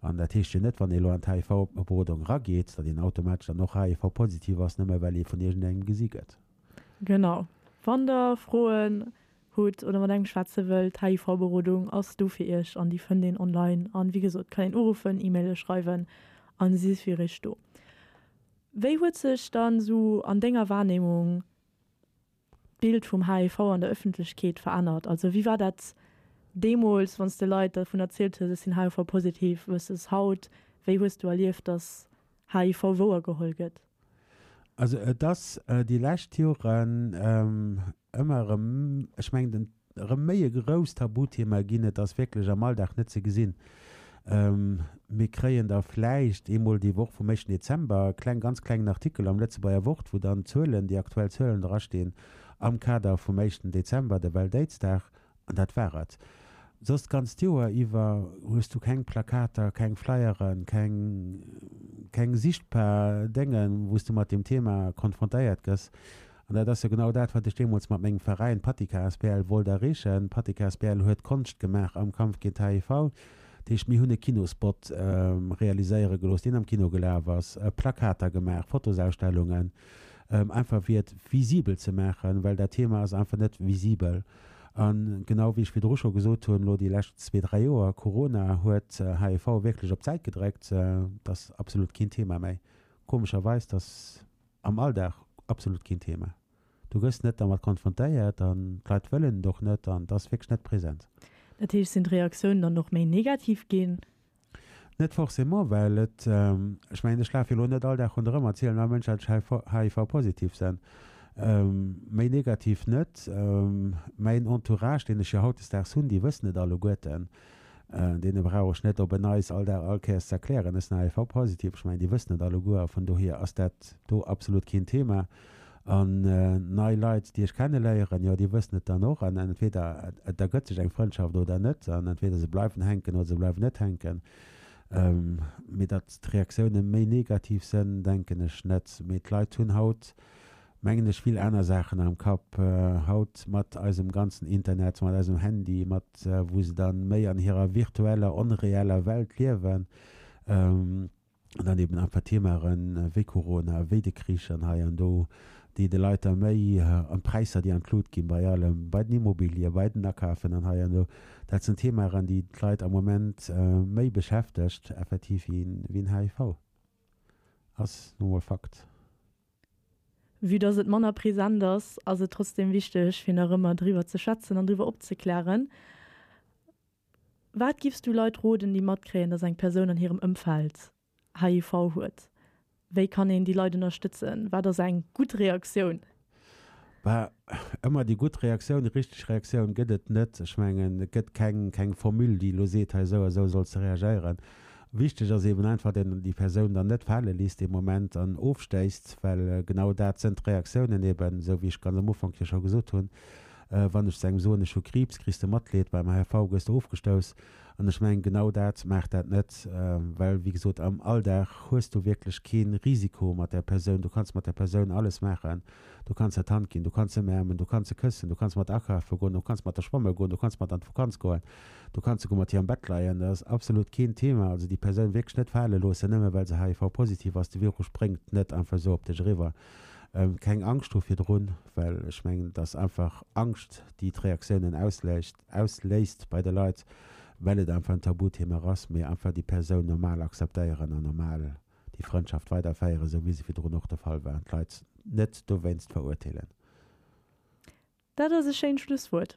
Speaker 2: An dat heescht jo net, wann ee elo an d'HIV-Berodung erageet, datt een automatesch dann och HIV-positiv ass, nëmme well ee vun iergendengem gesi gëtt.
Speaker 1: Genau. Wann Der Froen hutt oder mat engem schwätze wëllt, d'HIV-Berodung ass do fir iech an déi fënnt een online. An wéi gesot, kann een uruffen, E-Maile schreiwen an si fir iech do. Wéi huet sech dann esou an denger Wahrnehmung d'Bild vum HIV an der Ëffentlechkeet verännert? Also wéi war dat deemools, wann s de Leit dervun erzielt hues, ech sinn HIV-positiv, versus haut? Wéi hues du erlieft, dass HIV wouergeholl gëtt?
Speaker 2: Also et ass déi lescht Joren ëmmer erëm, ech mengen den, erëm méi e grousst Tabuthema ginn. Et ass wierklech am Alldag net ze gesinn. Mir kréien da vläicht eemol déi Woch vum éischten Dezember e kleng, ganz klengen Artikel am Lëtzebuerger Wort, wou dann d'Zuelen, déi aktuell Zuelen drastinn am Kader vum éischten Dezember, de Welt-Aids-Dag. An dat war et. Soss d'ganzt Joer iwwer hues du keng Plakater, keng Flyeren, keng, keng sichtbar Déngen, wou s du mat deem Thema konfrontéiert gëss. An dat ass jo genau dat, wat ech deemools mat mengem Veräin Patika asbl wollt erreechen. Patika asbl huet Konscht gemaach am Kampf géint HIV. Dat heescht, mir hunn e Kinospot realiséiere gelooss, deen am Kino gelaf ass, Plakater gemaach, Fotosausstellungen, einfach fir et visibel ze maachen, well dat Thema ass einfach net visibel. A genau wéi ech virdru scho gesot hunn, elo déi lescht zwee, dräi Joer, Corona huet HIV wierklech op d'Säit gedréckt. Et ass absolut keen Thema méi. Komescherweis, et ass am Alldag absolut keen Thema. Du gëss net dermat konfrontéiert an d'Leit wëllen et och net an et ass wierklech net present.
Speaker 1: Dat heescht, sinn d'Reaktiounen dann och méi negativ ginn?
Speaker 2: Net forcément, well et, ech mengen, ech lafe jo elo net all Dag ronderëm a zielen all Mënsch, datt ech HIV-positiv sinn. Méi negativ net. Mäin Entourage, deen ech jo hautdesdaags hunn, déi wëssen et alleguerten. Deene brauch ech net op en Neits all Dag all Kéiers ze erklären, ech sinn HIV-positiv. Ech mengen, déi wëssen et alleguer a vun dohier ass dat do absolut keen Thema. An nei Leit, déi ech kenneléieren, jo, déi wëssen et dann och. An entweder et ergëtt sech eng Frëndschaft oder net. An entweder se bleiwen hänken oder se bleiwen net hänken. Mee datt d'Reaktioune méi negativ sënn, denken ech net. Mee d'Leit hunn haut, mengen ech, vill aner Saachen am Kapp. Haut mat eisem ganzen Internet, mat eisem Handy, mat wou se dann méi an hirer virtueller, onreeller Welt liewen. An dann eben einfach Themaen wéi Corona, wéi de Krich an hei an do, déi de Leit da méi, an d'Präisser, déi an d'Lut ginn bei allem, bei den Immobilien, bei den Akafen an hei an do, dat sinn Themaen, déi d'Leit am Moment méi beschäftegt effektiv wéi en HIV. Ass nu mol Fakt.
Speaker 1: Vue dass et manner present ass, ass et trotzdem wichteg, fir nach ëmmer driwwer ze schwätzen an driwwer opzeklären. Wat giffs du Leit roden, déi matkréien, dass eng Persoun an hirem Ëmfeld HIV huet? Wéi kann een déi Leit ënnerstëtzen? Wat ass eng gutt Reaktioun?
Speaker 2: Bah, ëmmer déi gutt Reaktioun, déi richteg Reaktioun gëtt et net. Ech mengen, et gëtt keng, keng Formule, déi elo seet, hei esou a esou solls de reagéieren. Wichteg ass eeben einfach, datt een déi Persoun dann net fale léisst dee Moment an ofstéisst, well genau dat sënn d'Reaktiounen eeben, esou wéi ech ganz am Ufank jo scho gesot hunn. Wann ech zu engem soen, ech hu Kriibs, kriss de Matleed, beim HIV gëss de ofgestouss. An ech mengen, genau dat maacht dat net, well, wéi gesot, am Alldag hues du wierklech kee Risiko mat där Persoun. Du kanns mat där Persoun alles maachen. Du kanns der d'Hand ginn, du kanns se ëmäermen, du kanns se këssen, du kanns mat akafe goen, du kanns mat der schwamme goen, du kanns mat an d'Vakanz goen, du kanns souguer mat hir am Bett leien. Dat ass absolut keen Thema. Also déi Persoun wierklech net fale loossen, nëmme well se HIV-positiv ass. De Virus spréngt net einfach esou op dech eriwwer. Keng Angscht hu virdrun, well ech mengen, et ass einfach Angscht, déi d'Reaktiounen ausléist, ausléist bei de Leit, well et einfach en Tabuthema ass, mee einfach déi Persoun normal akzeptéieren an normal déi Frëndschaft weiderféieren, esou wéi se virdrun och de Fall war, an d'Leit net dowéinst verurteelen.
Speaker 1: Dat ass e schéint Schlusswuert.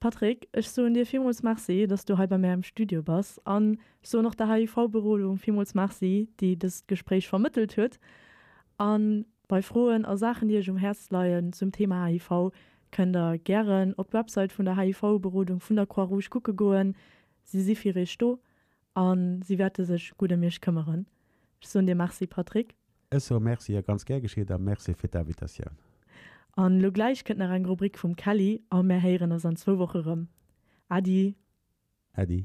Speaker 1: Patrick, ech soen dir villmools Merci, dass du hei bei mär am Studio bass an ech soen och der HIV-Berodung villmools Merci, déi dëst Gespréich vermëttelt huet. A bei Froen a Saachen, déi iech um Häerz leien zum Thema HIV, kënnt der gären op d'Website vun der HIV-Berodung vun der Croix-Rouge kucke goen. Si si fir iech do a si wäerte sech gutt ëm iech këmmeren. Ech soen dir Merci, Patrick.
Speaker 2: Ech soe Merci a ganz gär geschitt a Merci fir d'Invitatioun.
Speaker 1: An elo gläich kënnt nach eng Rubrik vum Kelly a mär héieren eis an zwou Woche rëm. Äddi.
Speaker 2: Äddi.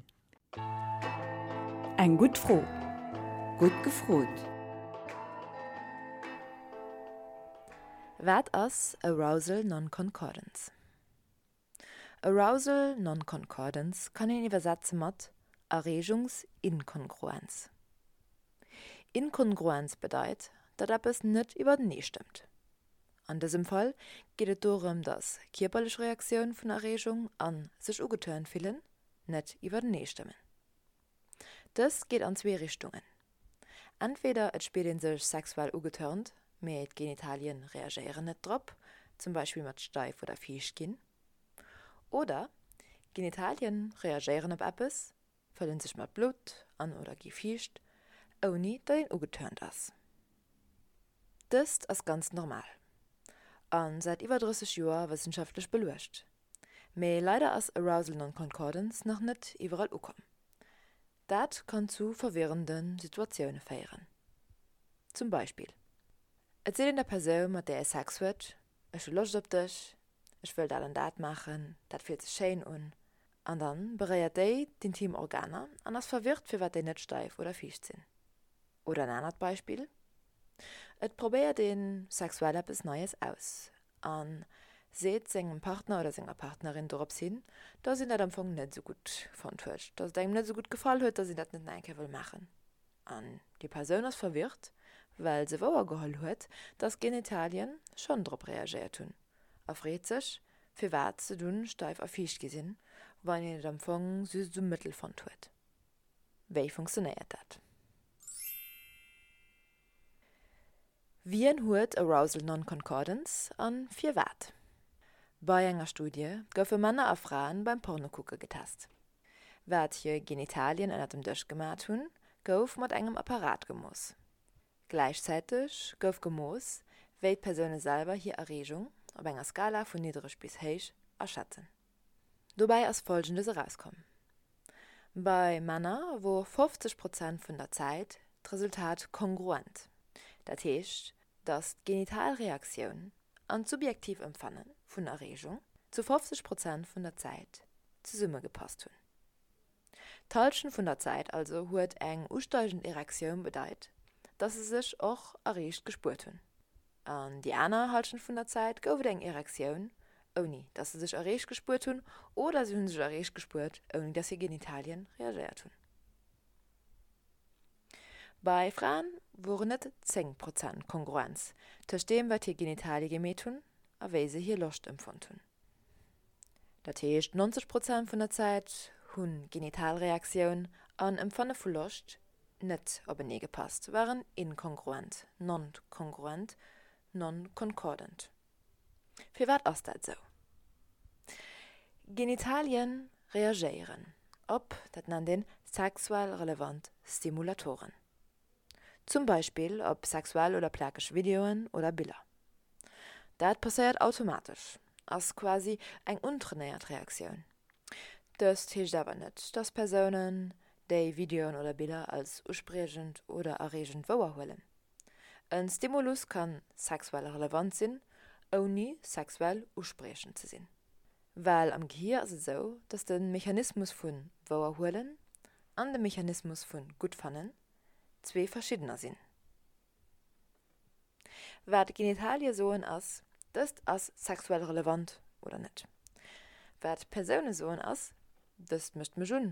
Speaker 3: Eng gutt Fro. Gutt gefrot. Wat ass Arousal Non-Concordance? Arousal Non-Concordance kann een iwwersetze mat Erreegungsinkongruenz. Inkongruenz bedeit, datt eppes net iwwertenee stëmmt. An dësem Fall geet et dorëm, datt kierperlech Reaktioun vun Erreegung an sech ugeturnt fillen net iwwertenee stëmmen. Dëst geet an zwee Richtungen, Entweder et spiert een sech sexuell ugetörnt, mee d'Genitalien reagéieren net drop, zum Beispill mat steif oder fiicht ginn. Oder d'Genitalien reagéieren op eppes, fëllen sech mat Blutt an oder gi fiicht, ouni datt een ugetörnt ass. Dëst ass ganz normal a säit iwwer 30 Joer wëssenschaftlech beluecht. Mee leider ass Arousal Non-Concordance nach net iwwerall ukomm. Dat kann zu verwirrende Situatioune féieren. Zum Beispill, Et seet een der Persoun, mat där ee Sex huet, Ech hu Loscht op dech, ech wëll dat an dat maachen, dat fillt sech schéin un. An dann beréiert déi d'intim Organer an ass verwirrt, firwat déi net steif oder fiicht sinn. Oder en anert Beispill, Et probéiert ee sexuell eppes Neies aus a seet sengem Partner oder senger Partnerin dorops hin, dass een dat am Fong net esou gutt fonnt huet, dass et engem net esou gutt gefall huet, dass een dat net nach eng Kéier wëll maachen. An déi Persoun ass verwirrt, well se wouergeholl huet, dass d'Genitalien schonn drop reagéiert hunn a freet sech, firwat se dunn steif a fiicht gi sinn, wann een et am Fong just esou mëttel fonnt huet. Wéi funktionéiert dat? Wien huet Arousal Non-Concordance a firwat? Bei enger Studie goufe Männer a Fraen beim Pornokucke getest. Wat hir Genitalien ënner dem Dësch gemat hunn, gouf mat engem Apparat gemooss. Gläichzäiteg gouf gemooss, wéi d'Persoune selwer hir Erreegung, op enger Skala vun niddereg bis héich, aschätzen. Dobäi ass Folgendes erauskomm, Bei Männer wor 50 Prozent vun der Zäit d'Resultat kongruent, dat heescht. dass d'Genitalreaktioun an d'subjektiv Empfanne vun Erreegung zu 50 Prozent vun der Zäit zesummegepasst hunn. D'Hallschent vun der Zäit also huet eng usteigend Erektioun bedeit, dass se sech och erreegt gespuert hunn. An déi aner Hallschent vun der Zäit gouf et eng Erektioun, ouni dass se sech erreegt gespuert hunn, oder se hu sech erreegt gespuert, ouni dass hir Genitalien reagéiert hunn. Bei Fraen woren et 10 Prozent Kongruenz tëscht deem, wat hir Genitalie gemeet hunn a wéi se hir Loscht empfonnt hunn. Dat heescht 90 Prozent vun der Zäit hu Genitalreaktioun an Empfanne vu Loscht net openee gepasst, waren inkongruent, non-congruent, non-concordant. Firwat ass dat esou? Genitalien reagéieren op, dat nennt een sexuell relevant Stimulatoren. Zum Beispill op sexuell oder plakeg Videoen oder Biller. Dat passéiert automatesch, ass quasi eng untrainéiert Reaktioun. Dëst heescht awer net, dass Persounen déi Videoen oder Biller als uspriechend oder erreegend wouerhuelen. En Stimulus kann sexuell relevant sinn, ouni sexuell uspriechend ze sinn. Well am Gehier ass et esou, dass de Mechanismus vu wouerhuelen an de Mechanismus vu guttfannen zwee verschiddener sinn. Wat d'Genitalie soen ass, dëst ass sexuell relevant oder net. Wat d'Persoune soen ass, dëst mécht mech un,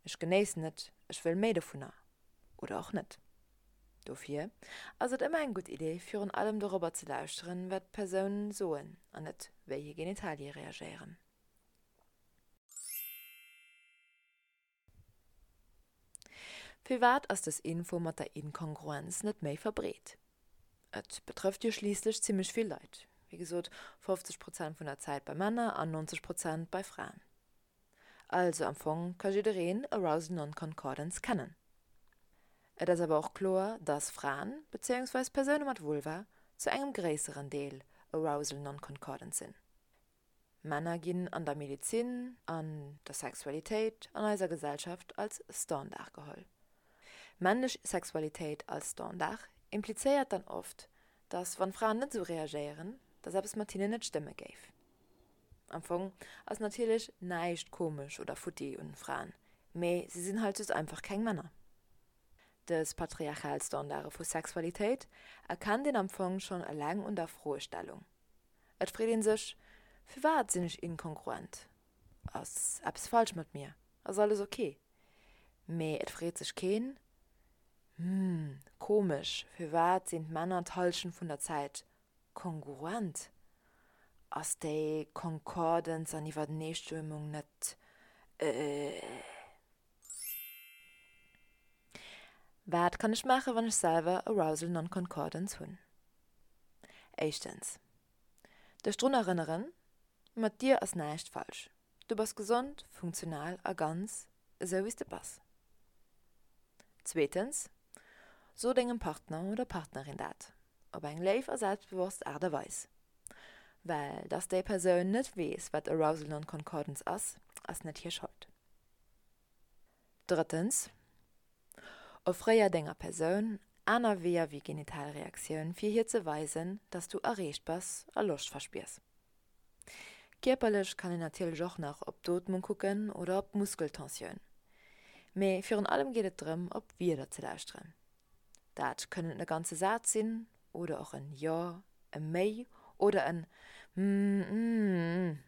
Speaker 3: ech genéissen et, ech wëll méi dovunner oder och net. Dofir ass et ëmmer eng gutt Idee virun allem dorobber ze lauschteren, wat d'Persounen soen an net wéi hir Genitalie reagéieren. Firwat ass dës Info mat der Inkongruenz net méi verbreet? Et betrëfft jo schliisslech zimmlech vill Leit, wéi gesot 50 Prozent vun der Zäit bei Männer an 90 Prozent bei Fraen. Also am Fong ka jiddereen Arousal Non-Concordance kennen. Et ass awer och kloer, dass Fraen, bezéiungsweis Persoune mat Vulva, zu engem gréisseren Deel Arousal Non-Concordant sinn. Männer ginn an der Medezin, an der Sexualitéit an eiser Gesellschaft als Standard geholl. Männlech Sexualitéit als Standard implizéiert dann oft, dass wann Fraen net esou reagéieren, dass eppes mat hinnen net stëmme géif. Am Fong ass natierlech näischt komesch oder futti un Fraen, mee si sinn halt just einfach keng Männer. Dës patriarchal Standarde vu Sexualitéit erkennt een am Fong schonn eleng un der Froestellung. Et freet een sech, Firwat sinn ech inkongruent? Ass eppes falsch mat mir? Ass alles ok? Mee et freet sech keen, Hm, komesch, firwat sinn d'Männer d'Hallschent vun der Zäit kongruent? Ass déi Concordance an Iwwerneestëmmung net äh. Wat kann ech maachen, wann ech selwer Arousal Non-Concordance hunn? Éischtens, dech drun erënneren, mat dir ass näischt falsch. Du bass gesond, funktional a ganz esou wéi s de bass. Zweetens, so dengem Partner oder Partnerin dat, op eng léif a selbstbewosst Aart a Weis. Well dass déi Persoun net weess, wat Arousal Non-Concordance ass, ass net hir Schold. Drëttens, Offréier denger Persoun aner Weeër wéi Genitalreaktioun fir hir ze weisen, dass du erreegt bass a Loscht verspiers. Kierperlech kann een natierlech och nach op d'Ootmung kucken oder op d'Muskeltensioun. Mee virun allem geet et drëm op Wierder ze lauschteren. Dat kënnen e ganze Saz sinn oder och en Jo, e Méi oder en Mmmmm.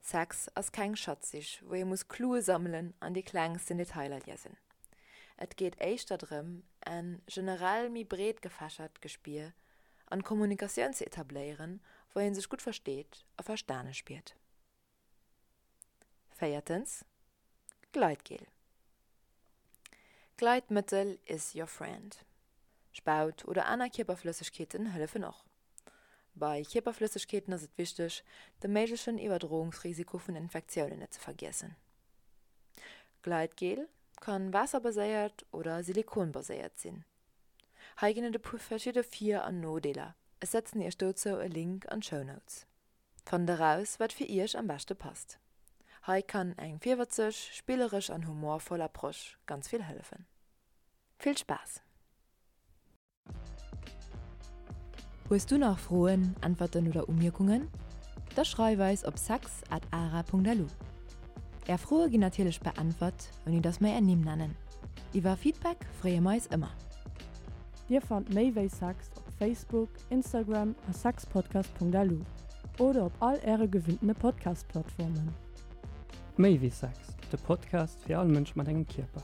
Speaker 3: Sex ass keng Schatzsich, wou ee muss Clue sammelen an déi klengsten Detailer liesen. Et geet éischter drëm, en generell méi breet gefächert Gespier an Kommunikatioun ze etabléieren, wou ee sech gutt versteet a verstane spiert. Véiertens, Gleitgel. Gleitmëttel is your friend. Spaut oder aner Kierperflëssegkeeten hëllefen och. Bei Kierperflëssegkeeten ass et wichteg, de méiglechen Iwwerdroungsrisiko vun Infektiounen net ze vergiessen. Gleitgel kann waasserbaséiert oder silikonbaséiert sinn. Hei ginn et e puer verschidde Vir an Nodeeler, ech setzen iech dozou e Link an d'Show Notes. Fannt eraus wat fir iech am beschte passt. Hei kann eng virwëtzeg, spilleresch an humorvoll Approche ganz vill hëllefen. Vill Spaass! Hues du nach Froen, Äntwerten oder Umierkungen? Da schreif eis op sex at ara.lu. Är Froe ginn natierlech beäntwert, ouni dass mer är Nimm nennen. Iwwer Feedback freeë mer eis ëmmer.
Speaker 1: Dir fannt méi wéi Sex op Facebook, Instagram a sexpodcast.lu oder op all äre gewinntene Podcast-Plattformen.
Speaker 6: Méi wéi Sex, de Podcast fir all Mënsch mat engem Kierper.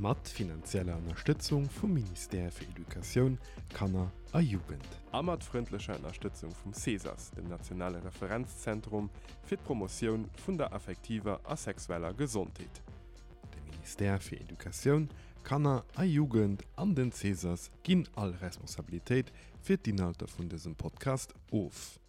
Speaker 5: Mat finanzieller Ënnerstëtzung vum Ministère fir Educatioun, Kanner a Jugend.
Speaker 4: A mat frëndlecher Ënnerstëtzung vum CESAS, dem nationale Referenzzentrum fir d'Promotioun vun der affektiver a sexueller Gesondheet.
Speaker 5: De Ministère fir Educatioun, Kanner a Jugend an den CESAS ginn all Responsabilitéit fir d'Inhalter vun dësem Podcast of.